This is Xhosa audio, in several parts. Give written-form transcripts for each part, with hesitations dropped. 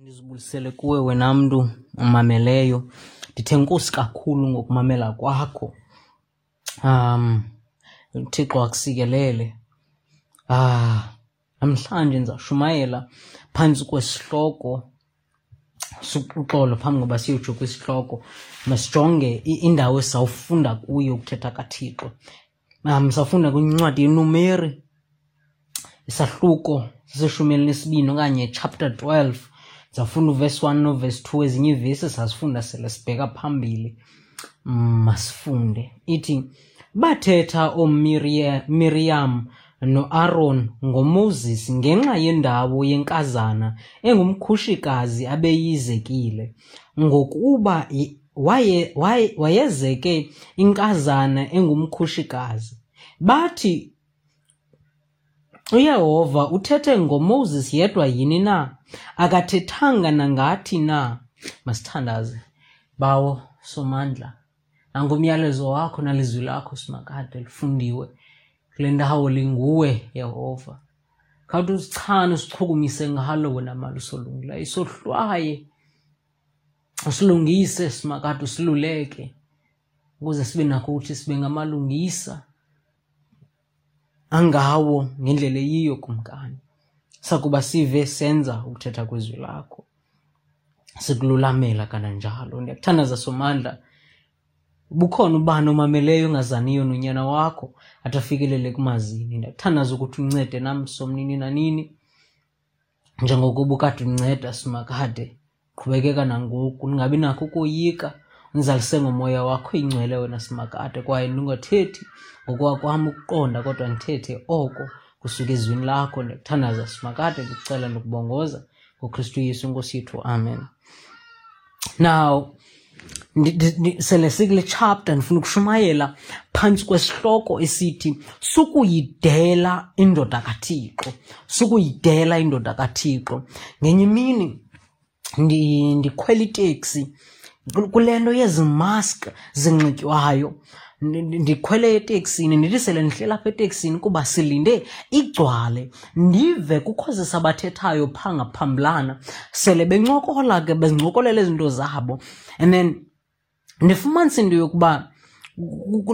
Ndizibulisele kuwe wena mntu umameleyo. Ndithe enkosi kakhulu ngokumamela kwakho. UThixo akusikelele. Namhlanje ndizawushumayela phantsi kwesihloko, uxolo, phambi koba siyotsho kwisihloko, masijonge indawo esizawufunda kuyo ukuthetha kaThixo. Sawufunda kwincwadi yeNumeri, isahluko seseshumi elinesibini okanye chapter 12. Ndizawufunda uvesi 1 novesi 2, ezinye iivesi sazifunda sele sibheka phambili. Masifunde. Ithi, bathetha ooMiriyam noAron ngoMoses ngenxa yendawo yenkazana engumkhushikazi abeyizekile, ngokuba wayezeke inkazana engumkhushikazi. Bathi, uYehova uthethe ngoMoses yedwa yini na? Akathethanga nangathi na? Masithandaze. Bawo Somandla, nangumyalezo wakho nalizwi lakho Simakade lifundiwe kule ndawo, linguwe Yehova. Khawuthi usichane, usichukumise ngalo wena malusi olungileyo, isohlwaye, usilungise Simakade, usiluleke ukuze sibe nakho ukuthi sibe ngamalungisa angawo ngendlela eyiyo, Kumkani. Sakuba sive senza ukuthetha kwezwi lakho, sikululamela kananjalo. Ndiyakuthandaza Somandla, bukhona ubani omameleyo ongazaniyo nonyana wakho athi afikelele kumazini. Ndiyakuthandaza ukuthi uncede nam Somnini nanini, njengokuba ukade unceda Simakade, qhubekeka nangoku, ndingabi nakho ukoyika, undizalise ngomoya wakho ingcwele wena Simakade, kwaye ndingathethi ngokwakwam ukuqonda, kodwa ndithethe oko kusuka ezwini lakho. Ndiyakuthandaza Simakade, ndikucela ndikubongoza ngoKristu Yesu inkosi yethu, amen. Now, sele sikule chapter, ndifuna ukushumayela phantsi kwesihloko esithi sukuyidela indoda kaThixo, sukuyidela indoda kaThixo. Ngenye imini ndikhwela iteksi kule nto yezi mask zinxitywayo, ndikhwele eteksini, ndithi sele ndihleli apha eteksini kuba silinde igcwale, ndive kukho sabathethayo phaa ngaphambilana, sele bencokola ke, bezincokolela izinto zabo, and then ndifumanise into yokuba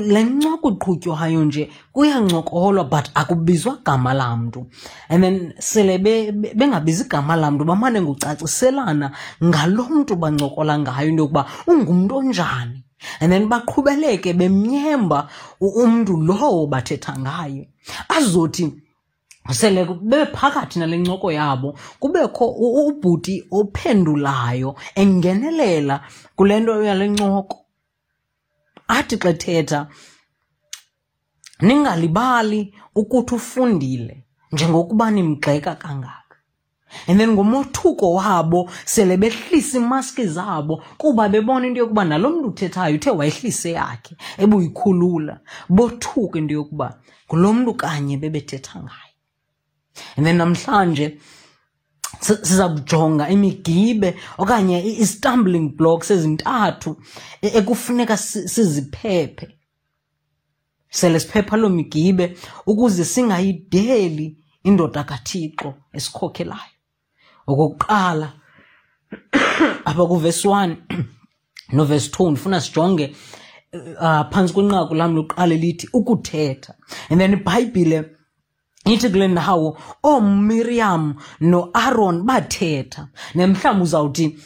le ncoko iqhutywayo nje kuyancokolwa but akubizwa gama lamntu, and then sele bengabizi igama lamntu, bamane ngocaciselana ngalo mntu bancokola ngayo into yokuba ungumntu onjani, and then baqhubeleke bemnyemba umntu lowo bathetha ngaye. Azothi sele bephakathi nale ncoko yabo, kubekho ubhuti ophendulayo engenelela kule nto yale ncoko, athi xa ethetha, ningalibali ukuthi ufundile njengokuba nimgxeka kangaka. And then ngomothuko wabo sele behlisa imaski zabo, kuba bebona into yokuba nalo mntu uthethayo uthe wayehlise yakhe ebuyikhulula, bothuka into yokuba ngulo mntu kanye bebethetha ngaye. And then namhlanje siza kujonga imigibe okanye i-stumbling blocks ezintathu ekufuneka siziphephe, sele siphepha loo migibe ukuze singayideli indoda kaThixo esikhokhelayo. Okokuqala, apha kuvesi 1 novesi 2, ndifuna sijonge phantsi kwenqaku lam lokuqala elithi ukuthetha. And then iBhayibhile ithi kule ndawo ooMiriam noAron bathetha. Nemhlawumbi uzawuthi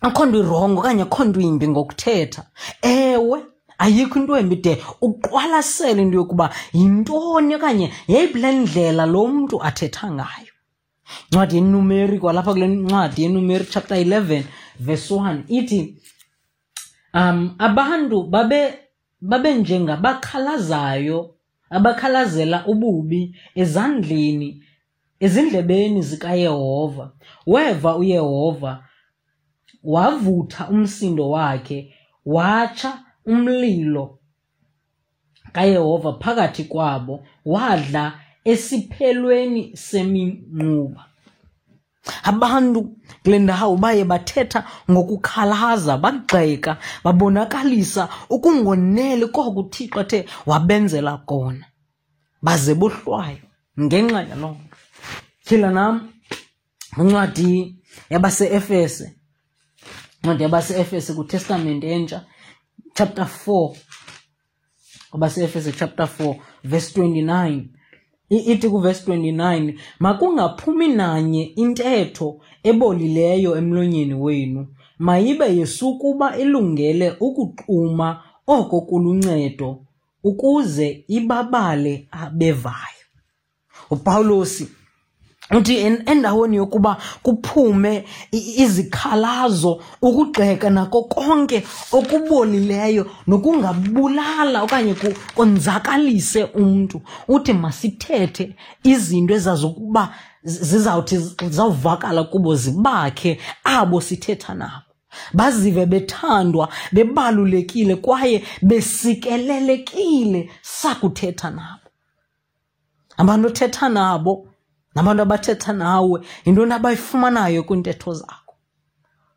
akho nto irongo okanye akho nto imbi ngokuthetha. Ewe, ayikho into embi de uqwalasele into yokuba yintoni okanye yeyiphi le ndlela lo mntu athetha ngayo. Incwadi yeNumeri, kwalapha kule ncwadi yeNumeri chapter 11 verse 1 ithi, abantu babe njengabakhalazayo abakhalazela ububi ezandleni ezindlebeni zikaYehova. Weva uYehova, wavutha umsindo wakhe, watsha umlilo kaYehova phakathi kwabo, wadla esiphelweni seminquba. Abantu kule ndawo baye bathetha ngokukhalaza, bagxeka, babonakalisa ukungoneli koko uThixo athe wabenzela kona, baze bohlwaywa ngenxa yaloo nto. Tyhila nam incwadi yabaseEfese, incwadi yabaseEfese kwiTestamente Entsha, chapter 4, kwabaseEfese chapter 4 verse 29, ithi kuverse 29, makungaphumi nanye intetho ebolileyo emlonyeni wenu, mayibe yesukuba ilungele ukuxuma oko kuluncedo, ukuze ibabale abevayo. UPawulosi uthi endaweni yokuba kuphume izikhalazo, ukugxeka nako konke okubolileyo nokungabulala okanye konzakalise umntu, uthi masithethe izinto ezazokuba zizawuthi zizawuvakala kubo, zibakhe abo sithetha nabo, bazive bethandwa, bebalulekile kwaye besikelelekile sakuthetha nabo. Abantu othetha nabo nabantu abathetha nawe, yintoni abayifumanayo kwiintetho zakho?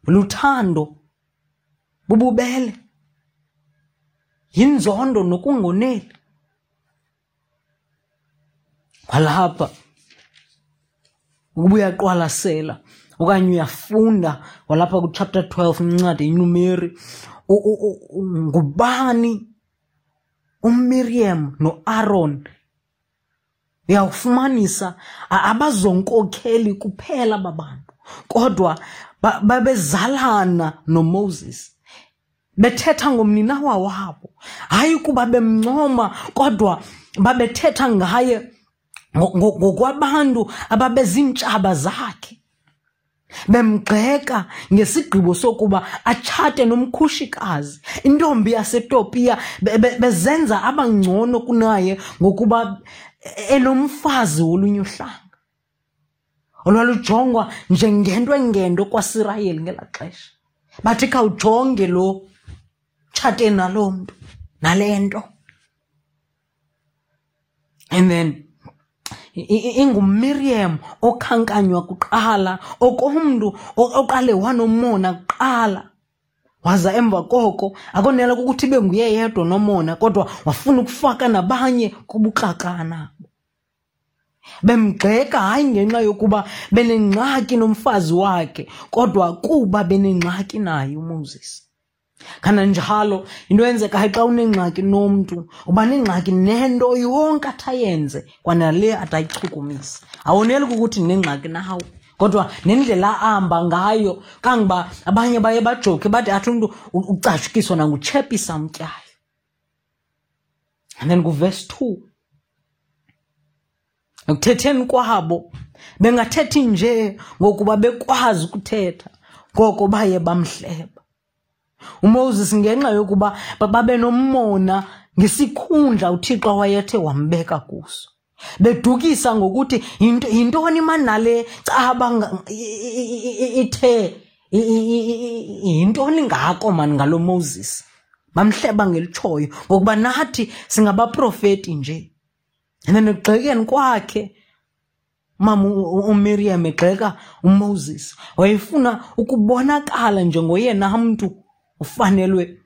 Luthando, bububele, yinzondo nokungoneli. Kwalapha ukuba uyaqwalasela okanye uyafunda kwalapha ku-chapter 12 incwadi iNumeri, ngubani uMiriam noAron? Uyawufumanisa abazonkokheli kuphela babantu, kodwa babezalana noMoses, bethetha ngomninawa wabo, hayi kuba bemncoma, kodwa babethetha ngaye ngokwabantu ababezintshaba zakhe, bemgxeka ngesigqibo sokuba atshate nomkhushikazi, intombi yaseTopiya, bezenza abangcono kunaye ngokuba enomfazi wolunye uhlanga olwalujongwa njengento engento kwaSirayeli ngelaa xesha. Bathi khawujonge lo, tshate nalo mntu nale nto. And then inguMiriam okhankanywa kuqala, okomntu oqale wanomona kuqala, waza emva koko akonela ukuthi ibe nguye yedwa nomona, kodwa wafuna ukufaka nabanye kubuxakana. Bemgxeka hayi ngenxa yokuba benengxaki nomfazi wakhe, kodwa kuba benengxaki naye uMoses. Kananjalo into eyenzekayo xa unengxaki nomntu, uba nengxaki nento yonke athi ayenze, kwanale athi ayichukumise. Awoneli kukuthi ndinengxaki nawe, kodwa nendlela ahamba ngayo, kangoba abanye baye bajoke bathi athi umntu ucashukiswa nanguchepisa amtyayo. And then kuverse 2, ekuthetheni kwabo bengathethi nje ngokuba bekwazi ukuthetha, ngoko baye bamhleba uMoses ngenxa yokuba babe nomona ngesikhundla uThixo wayethe wambeka kuso, bedukisa ngokuthi yintoni manale caba ithe yintoni ngako mani ngalo Moses. Bamhleba ngelitshoyo ngokuba nathi singabaprofeti nje. And then ekugxekeni kwakhe mama uMiriam egxeka uMoses, wayefuna ukubonakala njengoyena mntu ufanelwe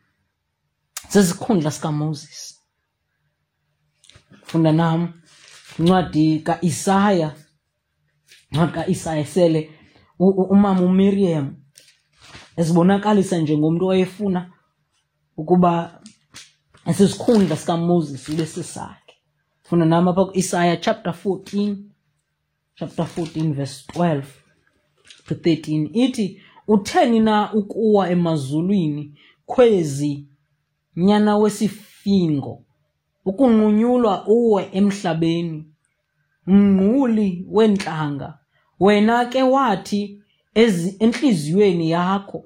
sesikhundla sikaMoses. Funda nam incwadi kaIsaya, incwadi kaIsaya sele umama uMiriam ezibonakalisa njengomntu owayefuna ukuba esisikhundla sikaMoses ibe sisakhe. Funda nam apha kuIsaya chapter 14, chapter 14 verse 12 to 13, ithi, utheni na ukuwa emazulwini, khwezi nyana wesifingo, ukunqunyulwa uwe emhlabeni, mngquli weentlanga? Wena ke wathi entliziyweni yakho,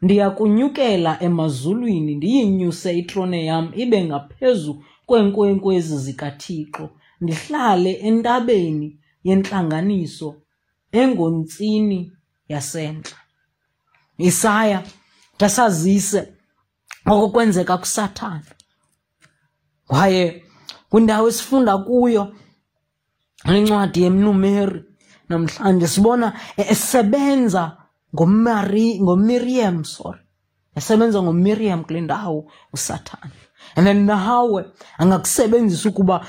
ndiyakunyukela emazulwini, ndiyinyuse itrone yam ibe ngaphezu kweenkwenkwezi zikaThixo, ndihlale entabeni yentlanganiso engontsini yasentla. Isaya tasazise oko kwenzeka kuSathana. Kwaye kwindawo esifunda kuyo incwadi yeNumeri namhlanje sibona esebenza ngoMiriam, sorry, esebenza ngoMiriam kule ndawo uSathana. And then nawe angakusebenzisa ukuba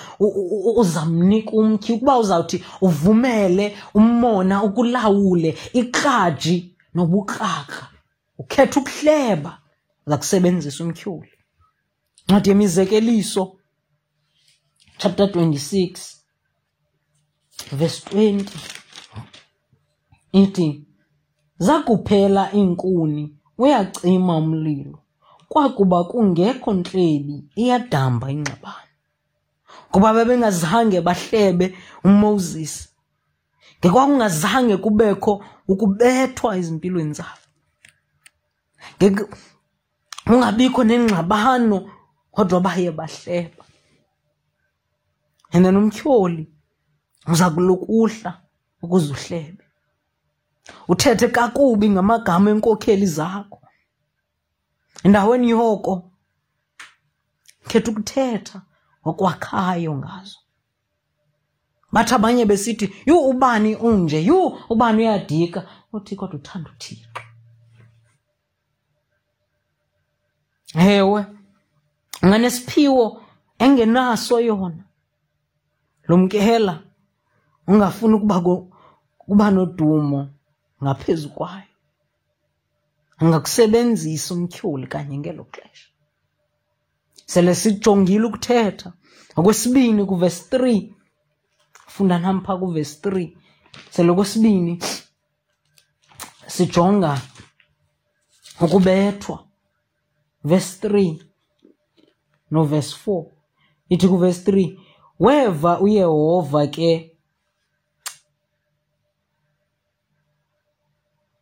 uzamnika umtyhi, ukuba uzawuthi uvumele umona ukulawule, ikraji nobukrakra, ukhetha ukuhleba, uza kusebenzisa umtyholi. Ncwadi yeMizekeliso chapter 26 verse 20 ithi, zakuphela iinkuni uyacima umlilo, kwakuba kungekho ntlebi iyadamba ingxabano. Kuba bebengazange bahlebe uMoses, ngekwakungazange kubekho ukubethwa ezimpilweni zabo, kungabikho nengxabano, kodwa baye bahleba. And then umtyholi uza kulukuhla ukuze uhlebe, uthethe kakubi ngamagama enkokheli zakho. Endaweni yoko khetha ukuthetha okwakhayo ngazo. Bathi abanye besithi, yhu ubani unje, yhu ubani uyadika, uthi kodwa uthanda uThixo. Ewe, unganesiphiwo engenaso yona, lumkela ungafuni ukuba nodumo ngaphezu kwayo. Angakusebenzisa umtyholi kanye ngelo xesha. Sele sijongile ukuthetha. Okwesibini kuvesi 3, funda nam phaa kuvesi 3. Sele okwesibini sijonga ukubethwa. Verse 3 no verse 4. Ithi kuvesi 3, weva uYehova ke,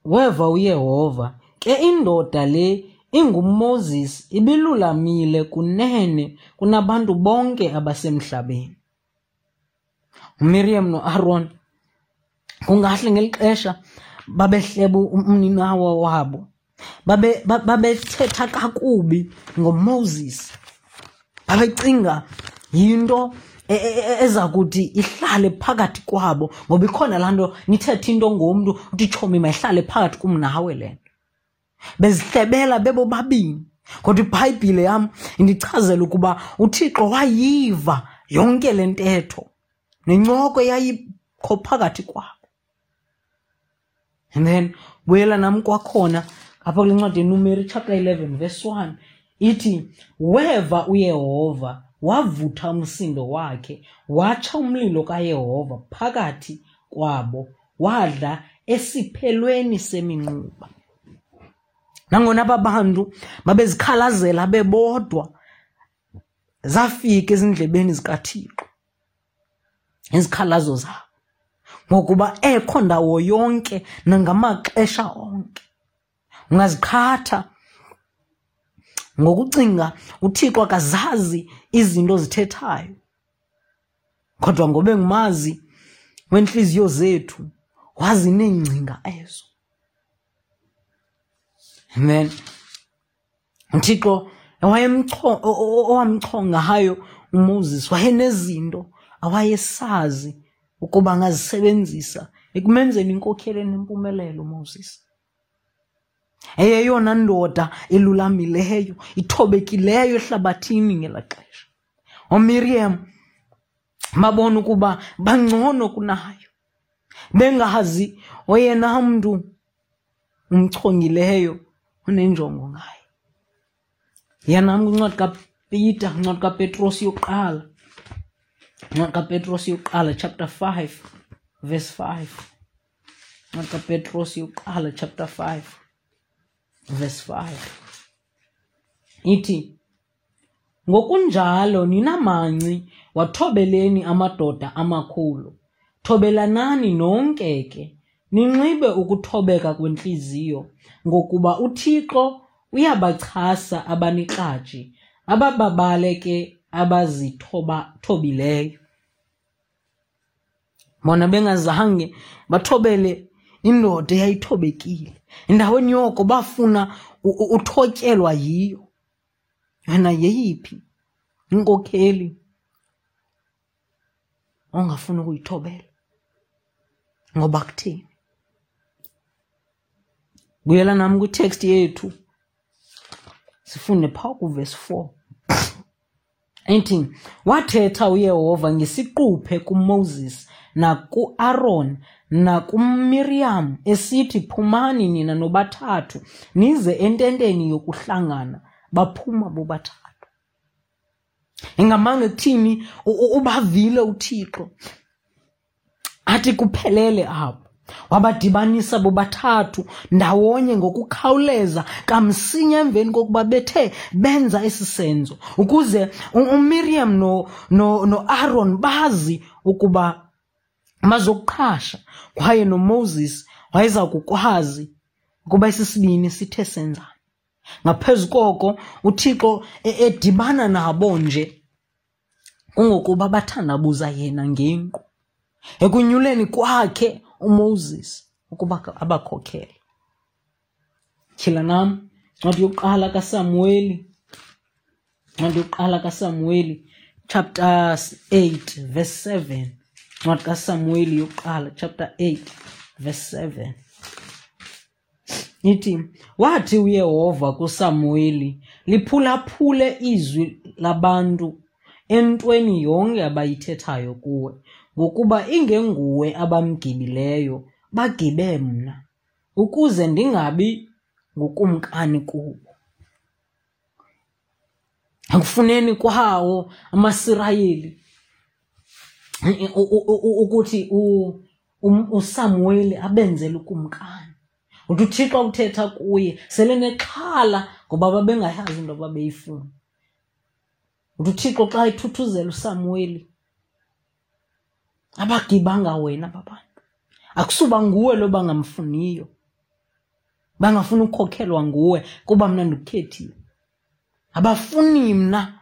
weva uYehova ke indoda le inguMoses ibilulamile kunene kunabantu bonke abasemhlabeni. uMiriam noAron kungahle ngeli xesha babehleba umninawa wabo, babethetha kakubi ngoMoses, babecinga yinto eza kuthi ihlale phakathi kwabo, ngoba ikhona laa nto nithethe into ngomntu uthi tshomi mayihlale phakathi kum nawe le nto. Bezihlebela bebobabini. Kodwa iBhayibhile yam indichazela ukuba uThixo wayiva yonke le ntetho nencoko eyayikho phakathi kwabo. And then buyela nam kwakhona apha kule ncwadi yeNumeri chapter 11 verse 1, ithi weva uYehova wavutha umsindo wakhe, watsha umlilo kaYehova phakathi kwabo, wadla esiphelweni seminquba. Nangona aba bantu babezikhalazela bebodwa, zafika ezindlebeni zikaThixo izikhalazo zabo, ngokuba ekho ndawo yonke nangamaxesha onke. Ungaziqhatha ngokucinga uThixo akazazi izinto ozithethayo, kodwa ngoba engumazi wentliziyo zethu, wazi neengcinga ezo. Amen. uThixo owamchongayo uMoses wayenezinto awayesazi ukuba angazisebenzisa ekumenzeni inkokheli enempumelelo uMoses. Eyeyona ndoda elulamileyo, ithobekileyo ehlabathini ngelaa xesha. OMiriam babona ukuba bangcono kunayo, bengazi oyena mntu umchongileyo onenjongo ngaye. Yiya nam kwincwadi kaPeter, incwadi kaPetros yokuqala, incwadi kaPetros yokuqala chapter 5 verse 5. Incwadi kaPetros yokuqala chapter 5 verse 5 ithi, ngokunjalo nina manci wathobeleni amadoda amakhulu, thobelanani nonke ke, ninxibe ukuthobeka kwentliziyo, ngokuba uThixo uyabachasa abanikratshi, abababale ke abazithobileyo. Bona bengazange bathobele indoda eyayithobekile, endaweni yoko bafuna uthotyelwa yiyo. Wena yeyiphi inkokheli ongafuni ukuyithobela? Ngoba kutheni? Buyela nam kwitext yethu, sifunde phaa kuvesi 4. Ithi, wathetha uYehova ngesiquphe kuMoses nakuAron nakuMiriam esithi, phumani nina nobathathu nize ententeni yokuhlangana. Baphuma bobathathu. Ingamanga ekuthini ubavile uThixo athi kuphelele apho. Wabadibanisa bobathathu ndawonye ngokukhawuleza kamsinya emveni kokuba bethe benza esi senzo, ukuze uMiriam noAron bazi ukuba bazokuqhasha, kwaye noMoses wayeza kukwazi ukuba esi sibini sithe senzani. Ngaphezu koko, uThixo edibana nabo nje kungokuba bathandabuza yena ngenkqu ekunyuleni kwakhe uMoses ukuba abakhokhele. Tyhila nam ncwadi yokuqala kaSamuweli, ncwadi yokuqala kaSamuweli chapter 8 verse 7. Ncwadi kaSamuweli yokuqala chapter 8 verse 7. Ithi, wathi uYehova kuSamuweli, liphulaphule izwi labantu entweni yonke abayithethayo kuwe, ngokuba ingenguwe abamgibileyo, bagibe mna, ukuze ndingabi ngukumkani kubo. Ekufuneni kwawo amaSirayeli ukuthi uSamuweli abenzele ukumkani, uthi uThixo uthetha kuye sele nexhala ngoba babengayazi into ababeyifuna. Uthi uThixo xa ethuthuzela uSamuweli, abagibanga wena aba bantu, akusuba nguwe lo bangamfuniyo, bangafuni ukukhokhelwa nguwe kuba mna ndikukhethile, abafuni mna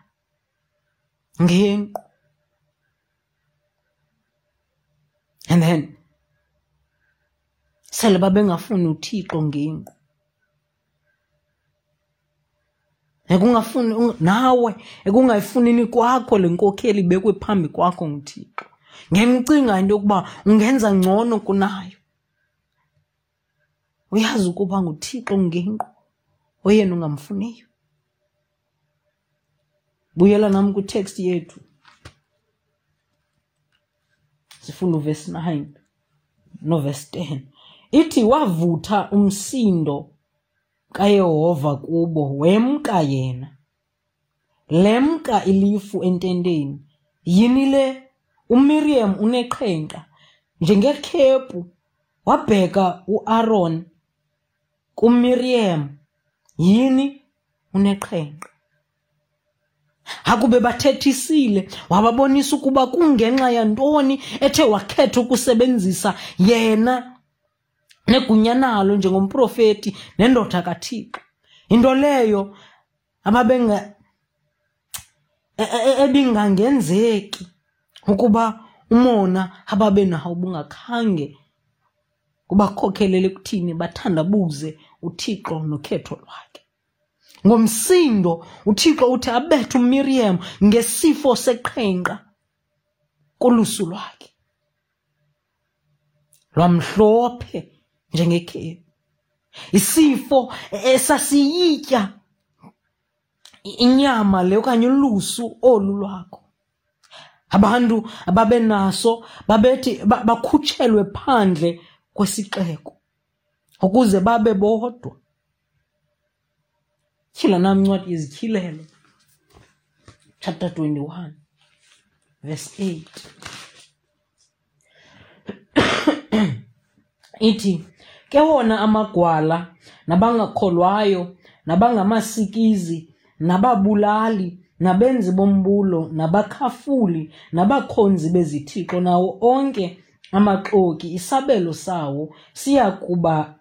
ngenqu. And then sele babengafuni uThixo ngenqu, ekungafuni nawe, ekungayifunini kwakho le nkokheli ibekwe phambi kwakho nguThixo, ngemcinga into yokuba ungenza ngcono kunayo. Uyazi ukuba nguThixo ngenqu oyena ungamfuniyo. Buyela nam kwitext yethu, sifunda uverse 9 noverse 10. Ithi, wavutha umsindo kaYehova kubo, wemka yena. Lemka ilifu ententeni. Yini le? uMiriam uneqhenqa njengekhephu. Wabheka uAron kuMiriam. Yini? Uneqhenqa. Akube bathethisile, wababonisa ukuba kungenxa yantoni ethe wakhetha ukusebenzisa yena negunya nalo njengomprofeti nendoda kaThixo. Into leyo ababenga ebingangenzeki ukuba umona ababenawo bungakhange kubakhokhelele ekuthini bathandabuze uThixo nokhetho lwakhe. Ngomsindo uThixo uthi abethe uMiriam ngesifo seqhenqa kolusu lwakhe, lwamhlophe njengekhephu, isifo esasiyitya inyama le okanye ulusu olu lwakho. Abantu ababenaso babethi bakhutshelwe phandle kwesixeko ukuze babe bodwa. Tyhila nam incwadi yeZityhilelo chapter 21 verse 8. Ithi, ke wona amagwala nabangakholwayo nabangamasikizi nababulali nabenzi bombulo nabakhafuli nabakhonzi bezithixo nawo onke amaxoki, isabelo sawo siya kuba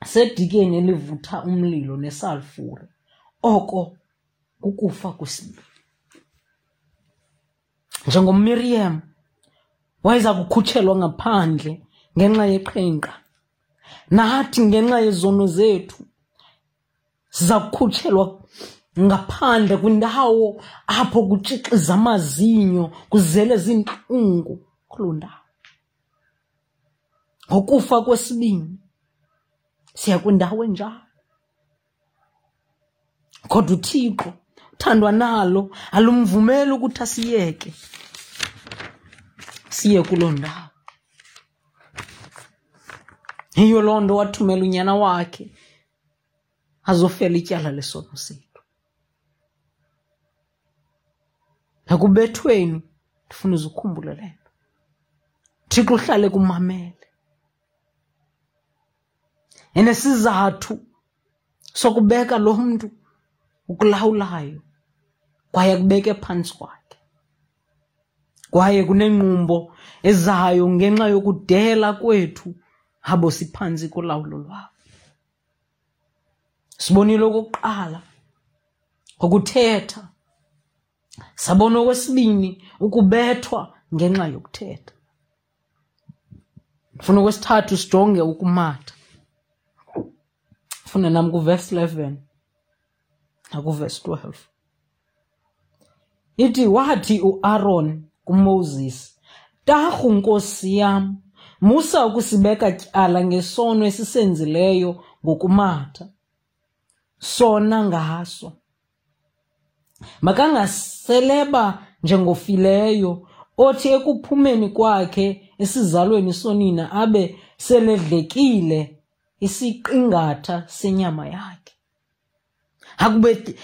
sedikeni elivutha umlilo nesalfure, oko kukufa kwesibini. NjengoMiriam wayeza kukhutshelwa ngaphandle ngenxa yeqhenqa, nathi ngenxa yezono zethu siza kukhutshelwa ngaphandle kwindawo apho kutshixiza amazinyo, kuzele zintlungu kuloo ndawo. Ngokufa kwesibini siya kwindawo enjalo. Kodwa uThixo Thandwa nalo alumvumeli ukuthi asiyeke siye kuloo ndawo. Yiyo loo nto wathumela unyana wakhe azofela ityala lesono sethu. Ekubethweni ndifuna uze ukhumbule le nto. Thixo uhlale kumamele. Enesizathu sokubeka lo mntu ukulawulayo kwaye akubeke phantsi kwakhe. Kwaye kunengqumbo ezayo ngenxa yokudela kwethu abo siphantsi kolawulo lwabo. Sibonile okokuqala ngokuthetha, sabona okwesibini ukubethwa ngenxa yokuthetha. Ndifuna okwesithathu sijonge ukumatha. Funda nam kuvesi 11 nakuvesi 12. Ithi wathi uAron kuMoses, Tarhu nkosi yam, musa ukusibeka tyala ngesono esisenzileyo ngokumatha sona ngaso. Makangaseleba njengofileyo othi ekuphumeni kwakhe esizalweni sonina abe seledlekile isiqingatha senyama yakhe. Akube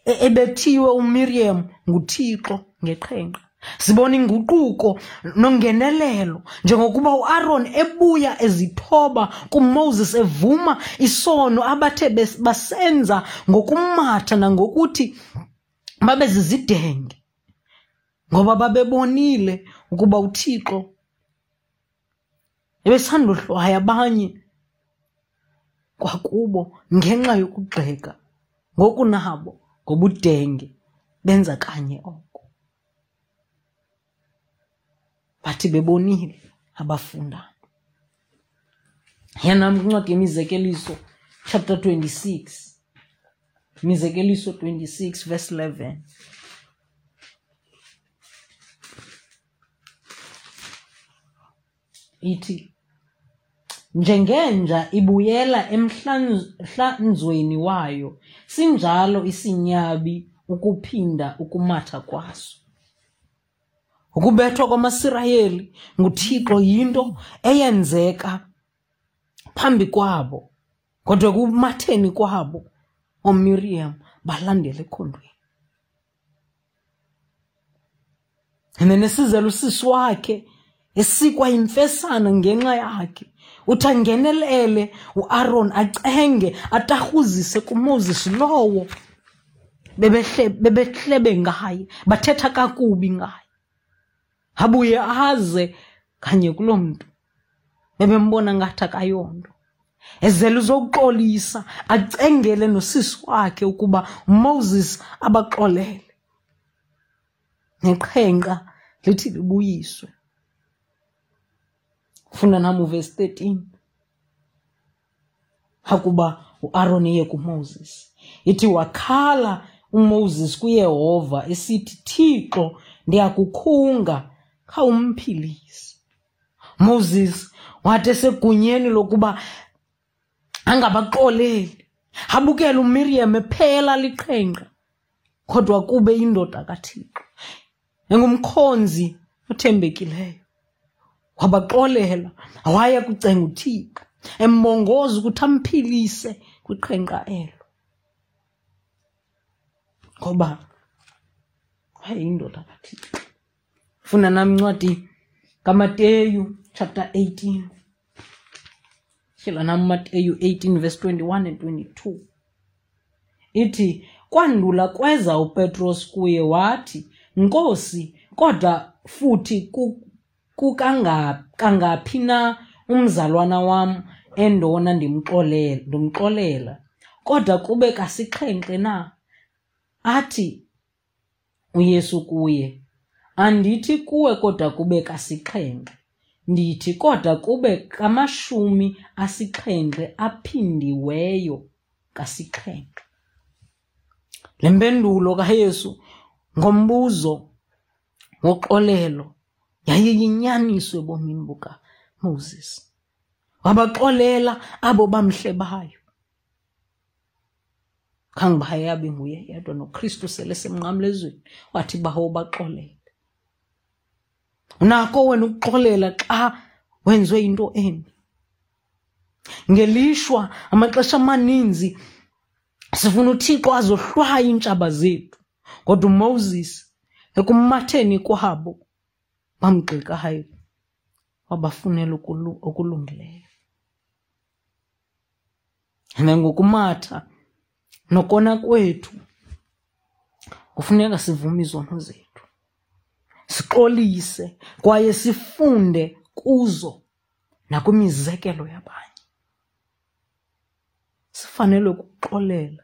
ebethiwe uMiriam nguThixo ngeqhenqa. Sibona inguquko nongenelelo njengokuba uAron ebuya ezithoba kuMoses evuma isono abathe basenza ngokumatha nangokuthi babe zizidenge ngoba babebonile ukuba uThixo ebesandohlwaya abanye kwakubo ngenxa yokugxeka ngokunabo ngobudenge benza kanye oko. Bathi bebonile abafundanga. Yanam kwincwadi yeMizekeliso chapter 26. Mizekeliso 26 verse 11. Ithi njengenja ibuyela emhlanzweni wayo, sinjalo isinyabi ukuphinda ukumatha kwaso. Ukubethwa kwamaSirayeli nguThixo yinto eyenzeka phambi kwabo, kodwa ekumatheni kwabo ooMiriam balandela ekhondweni. And then esizela usisi wakhe esikwa yimfesana ngenxa yakhe, uthi angenelele uAron acenge atarhuzise kuMoses lowo bebehlebe ngaye, bathetha kakubi ngaye. Abuye aze kanye kuloo mntu bebembona ngathi akayonto, ezele uzokuxolisa acengele nosisi wakhe ukuba uMoses abaxolele, neqhenqa lithi libuyiswe. Funda nam uvesi 13. Akuba uAron eye kuMoses, ithi wakhala uMoses kuYehova esithi, Thixo, ndiyakukhunga, khawumphilise. Moses wathi esegunyeni lokuba angabaxoleli, abukele uMiriam ephela liqhenqa, kodwa kube indoda kaThixo engumkhonzi othembekileyo. Wabaxolela, waya kucenga uThixo embongoza ukuthi amphilise kwiqhenqa elo, ngoba wayeyindoda kaThixo. Funda nam incwadi kaMateyu chapter 18. Tyhila nam Mateyu 18 verse 21 and 22. Ithi kwandula kweza uPetros kuye wathi, Nkosi, kodwa futhi kukangaphi na umzalwana wam endona ndimxolela, kodwa kube kasixhenxe na? Athi uYesu kuye, Andithi kuwe kodwa kube kasixhenxe, ndithi kodwa kube kamashumi asixhenxe aphindiweyo kasixhenxe. Le mpendulo kaYesu ngombuzo woxolelo yayiyinyaniso ebomini bukaMoses. Wabaxolela abo bamhlebayo. Khange uba yabe nguye yedwa, noKristu sele semnqamlezweni wathi, Bawo, baxolele. Unako wena ukuxolela xa wenziwe into embi. Ngelishwa amaxesha amaninzi sifuna uThixo azohlwaya iintshaba zethu, kodwa uMoses ekumatheni kwabo bamgxekayo wabafunela okulungileyo. And ngokumatha nokona kwethu kufuneka sivume izono zethu, sixolise kwaye sifunde kuzo nakwimizekelo yabanye. Sifanele ukuxolela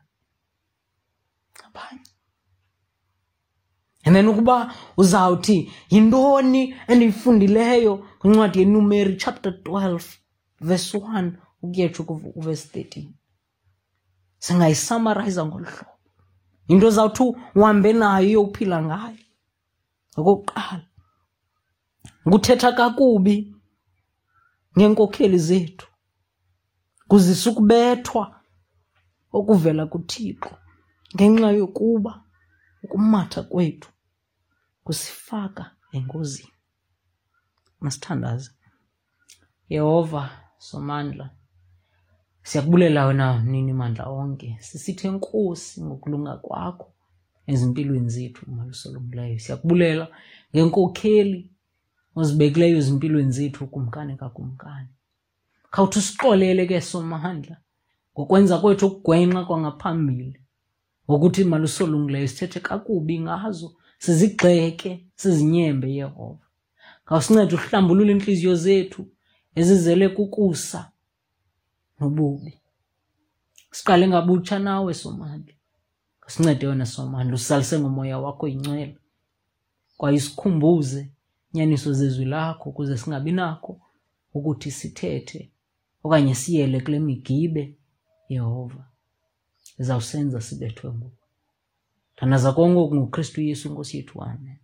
abanye. And then ukuba uzawuthi yintoni endiyifundileyo kwincwadi yeNumeri chapter 12 verse 1 ukuyetsho kuverse 13, singayisamarayiza ngolu hlobo. Yinto ozawuthi uhambe nayo uyophila ngayo. Okokuqala, nguthetha kakubi ngeenkokheli zethu kuzisa ukubethwa okuvela kuThixo, ngenxa yokuba ukumatha kwethu kusifaka engozini. Masithandaze. Yehova Somandla, siyakubulela wena mnini mandla onke, sisithi enkosi ngokulunga kwakho ezimpilweni zethu, umalusi olungileyo. Siyakubulela ngenkokheli ozibekileyo ezimpilweni zethu, ukumkani kakumkani. Khawuthi usixolele ke Somandla ngokwenza kwethu okugwenxa kwangaphambili, ngokuthi malusi olungileyo sithethe kakubi ngazo, sizigxeke, sizinyembe. Yehova, khawusincede uhlambulule iintliziyo zethu ezizele kukusa nobubi, siqale ngabutsha nawe Somandla. Sincede wena Somandla, usalise ngomoya wakho ingcwele, kwaye sikhumbuze inyaniso zezwi lakho, ukuze singabi nakho ukuthi sithethe okanye siyele kule migibe, Yehova, izawusenza sibethwe nguwe. Thandaza konke oku ngoKristu Yesu Nkosi yethu. Amen.